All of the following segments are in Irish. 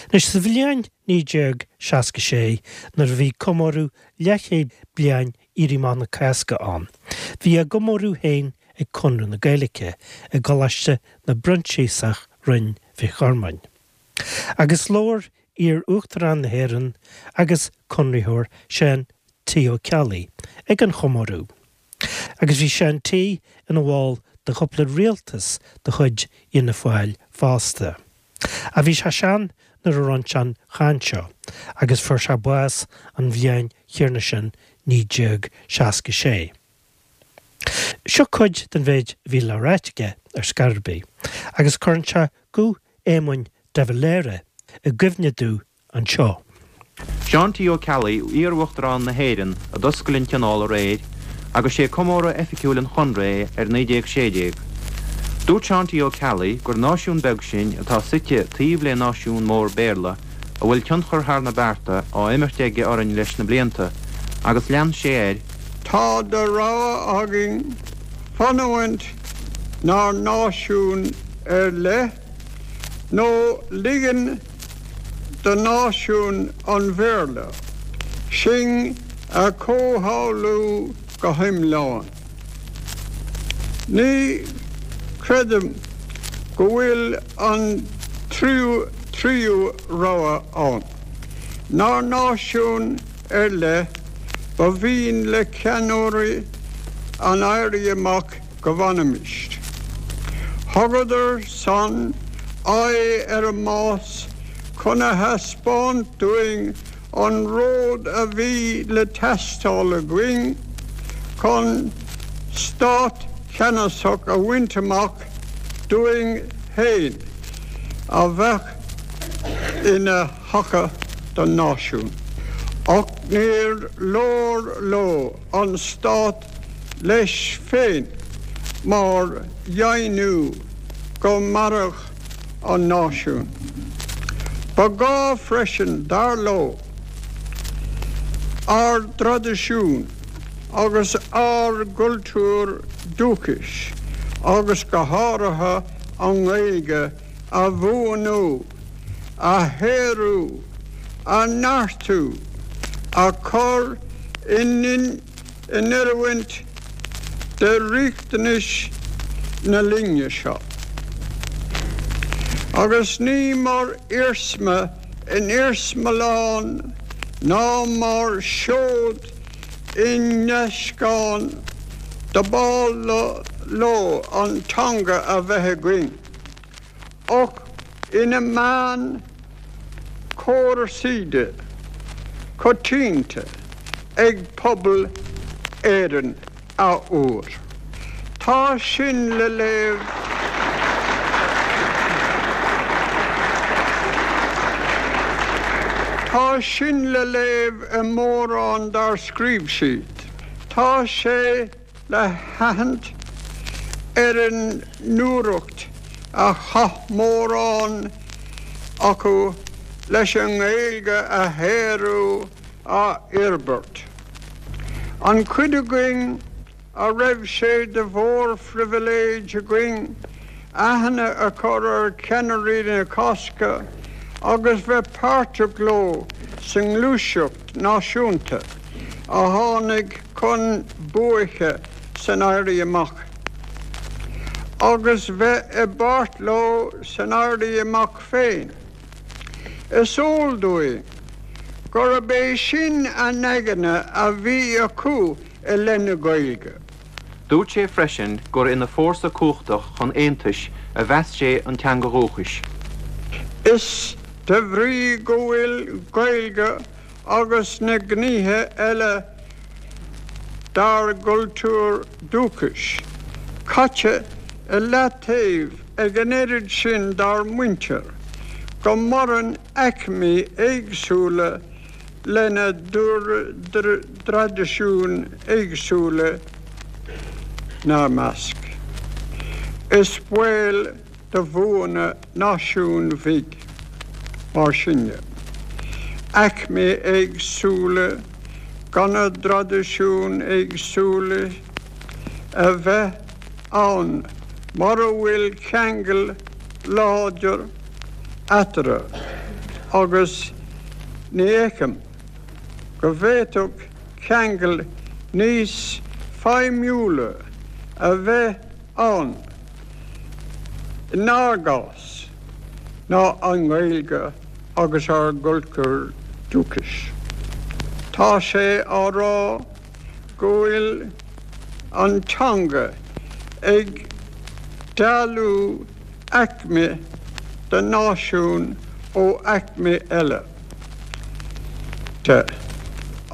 Anois, sa bhliain 1966, nuair a bhí comóradh leathchéad bliain Éirí Amach na Cásca ann, bhí a gcomóradh féin ag Conradh na Gaeilge i gColáiste na bProinsiasach Rinn Mhic Ghormáin. Agus labhair iar-Uachtarán na hÉireann agus Conraitheoir Seán T. Ó Ceallaigh ag an chomóradh. Agus bhí Seán T. ina bhall de chúpla rialtas de chuid Fhianna Fáil fosta. Ach bhí sé sean nuair a rinne sé an chaint seo agus fuair sé bás an bhliain chéanna sin 1966. Seo cuid den mhéid a bhí le ráit aige ar scor ar bith agus cuireann sé guth Éamoin de Valera i gcuimhne domh anseo. Seán T. Ó Ceallaigh, iar-Uachtarán na hÉireann, a d'oscail an tionól aréir agus sé comóradh oifigiúil an Chonradh é ar 1916. Dúirt Seán T. Ó Ceallaigh gur náisiún beag sinn atá suite taobh le náisiún mór Béarla a bhfuil tionchar thar na bearta á imirt aige orainn leis na blianta agus lean sé air Tá de rogha againn fanúint 'nár náisiún ar leith nó ligean do náisiún an Bhéarla sinn a chomhshamhlú go hiomlán. Ní chreidim go bhfuil an tríú rogha ann. 'Nár náisiún ar leith, ba mhian le ceannairí an Éirí Amach go bhfanfaimis. Thugadar san aghaidh ar an mbás chun a thaispeáint dúinn an ród a bhí le teastáil againn chun stát ceannasach a bhaint amach dúinn féin a bheadh ina thaca don náisiún. Ach níor leor leo an stát leis féin mar dheimhniú go mairfeadh an náisiún. Ba ghá freisin, dar leo, ár dtraidisiún agus ár gcultúr dúchais, agus go háirithe an Ghaeilge, a bhuanú, a shaothrú, a neartú, a chur in oiriúint do riachtanais na linne seo. Agus ní mar iarsma in iarsmalann ná mar sheoid i ndeascán dob áil leo an teanga a bheith againn. ach ina meán cumarsáide coitianta ag pobal Éireann athuair. Tá sin le léamh Tá sin le léamh i mórán dár scríobh siad. Tá sé le haithint ar an ndúthracht a chaith mórán acu leis an nGaeilge a shaothrú, a fhorbairt. An chuid againn a raibh sé de mhórphribhléid againn aithne a chur ar cheannairí na Cásca agus bheith páirteach leo sa ngluaiseacht náisiúnta a tháinig chun buaice san Éirí Amach, agus bheith i bpáirt leo san Éirí Amach féin. Is eol dúinn gurb é sin an aigne a bhí acu i leith na Gaeilge. Dúirt sé freisin gur ina fórsa cumhachtach chun aontais a mheas sé an teanga dhúchais. Is de bhrí go bhfuil Gaeilge agus na gnéithe eile dár gcultúr dúchais caite i leataobh ag an oiread sin dár muintir, go maireann aicmí éagsúla lena dtraidisiúin éagsúla 'nár measc. Is baol do bhuaine náisiúin bhig, mar sinne, aicmí éagsúla gona dtraidisiúin éagsúla a bheith ann mura bhfuil ceangal láidir eatarthu. Agus ní fheicim go bhféadfadh ceangal níos feidhmiúla a bheith ann inár gcás ná an Ghaeilge agus ár gcultúr dúchais. Tá sé á rá go bhfuil an teanga ag dealú aicme den náisiún ó aicme eile de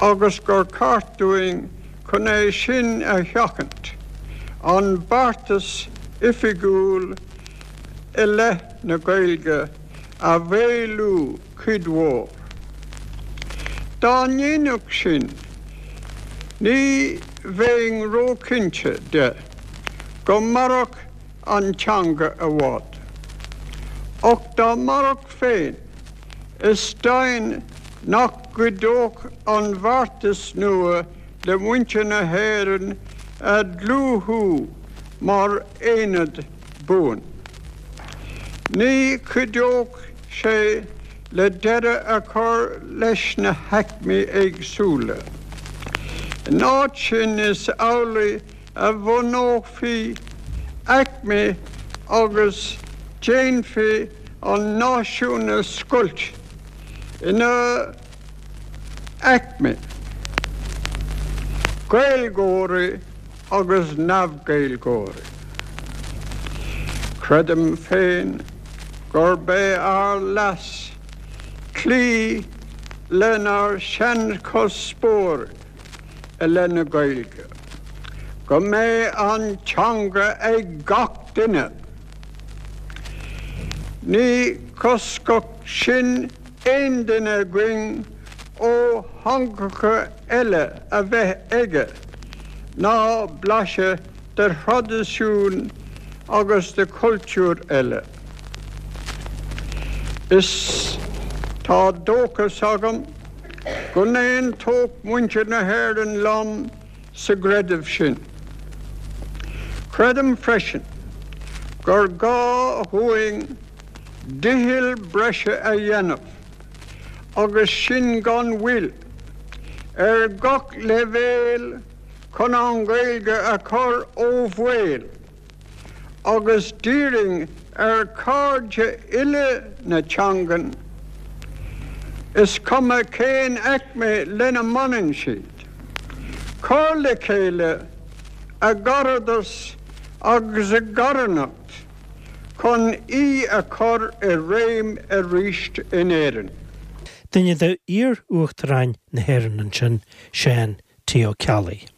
agus gur ceart dúinn chun é sin a sheachaint, an beartas oifigiúil i leith na Gaeilge a mhaolú cuid mhór. Dá ndéanfadh sin, ní bheinn róchinnte de go mairfeadh an teanga i bhfad. Ach dá mairfeadh féin, is deimhin nach gcuideodh an beartas nua le muintir na hÉireann a dhlúthú mar aonad buan. Ní chuideodh sé le deireadh a chur leis na haicmí éagsúla. In áit sin is amhlaidh a bhunófaí aicmí agus déanfaí an náisiún a scoilt ina aicmí, Gaeilgeoirí agus neamh-Ghaeilgeoirí. Creidim féin gurb é ár leas cloí lenár seanchuspóir i leith na Gaeilge, go mbeidh an teanga ag gach duine. Ní choscfadh sin aon duine againn ó theangacha eile a bheith aige ná blaiseadh de thraidisiúin agus de chultúir eile. Is tá dóchas agam go n-aontódh muintir na hÉireann liom sa gcreideamh sin. Creidim freisin gur gá dhúinn dicheall breise a dhéanamh, agus sin gan mhoill, ar gach leibhéal chun an Ghaeilge a chur ó bhaol. agus d'iarrfainn ar chairde uile na teangan, is cuma cén aicme lena mbaineann siad, cur le chéile a gcaradas agus a gcarthanacht chun í a chur i réim arís in Éirinn. Duine d'iar-uachtaráin na hÉireann ansin, Seán T. Ó Ceallaigh.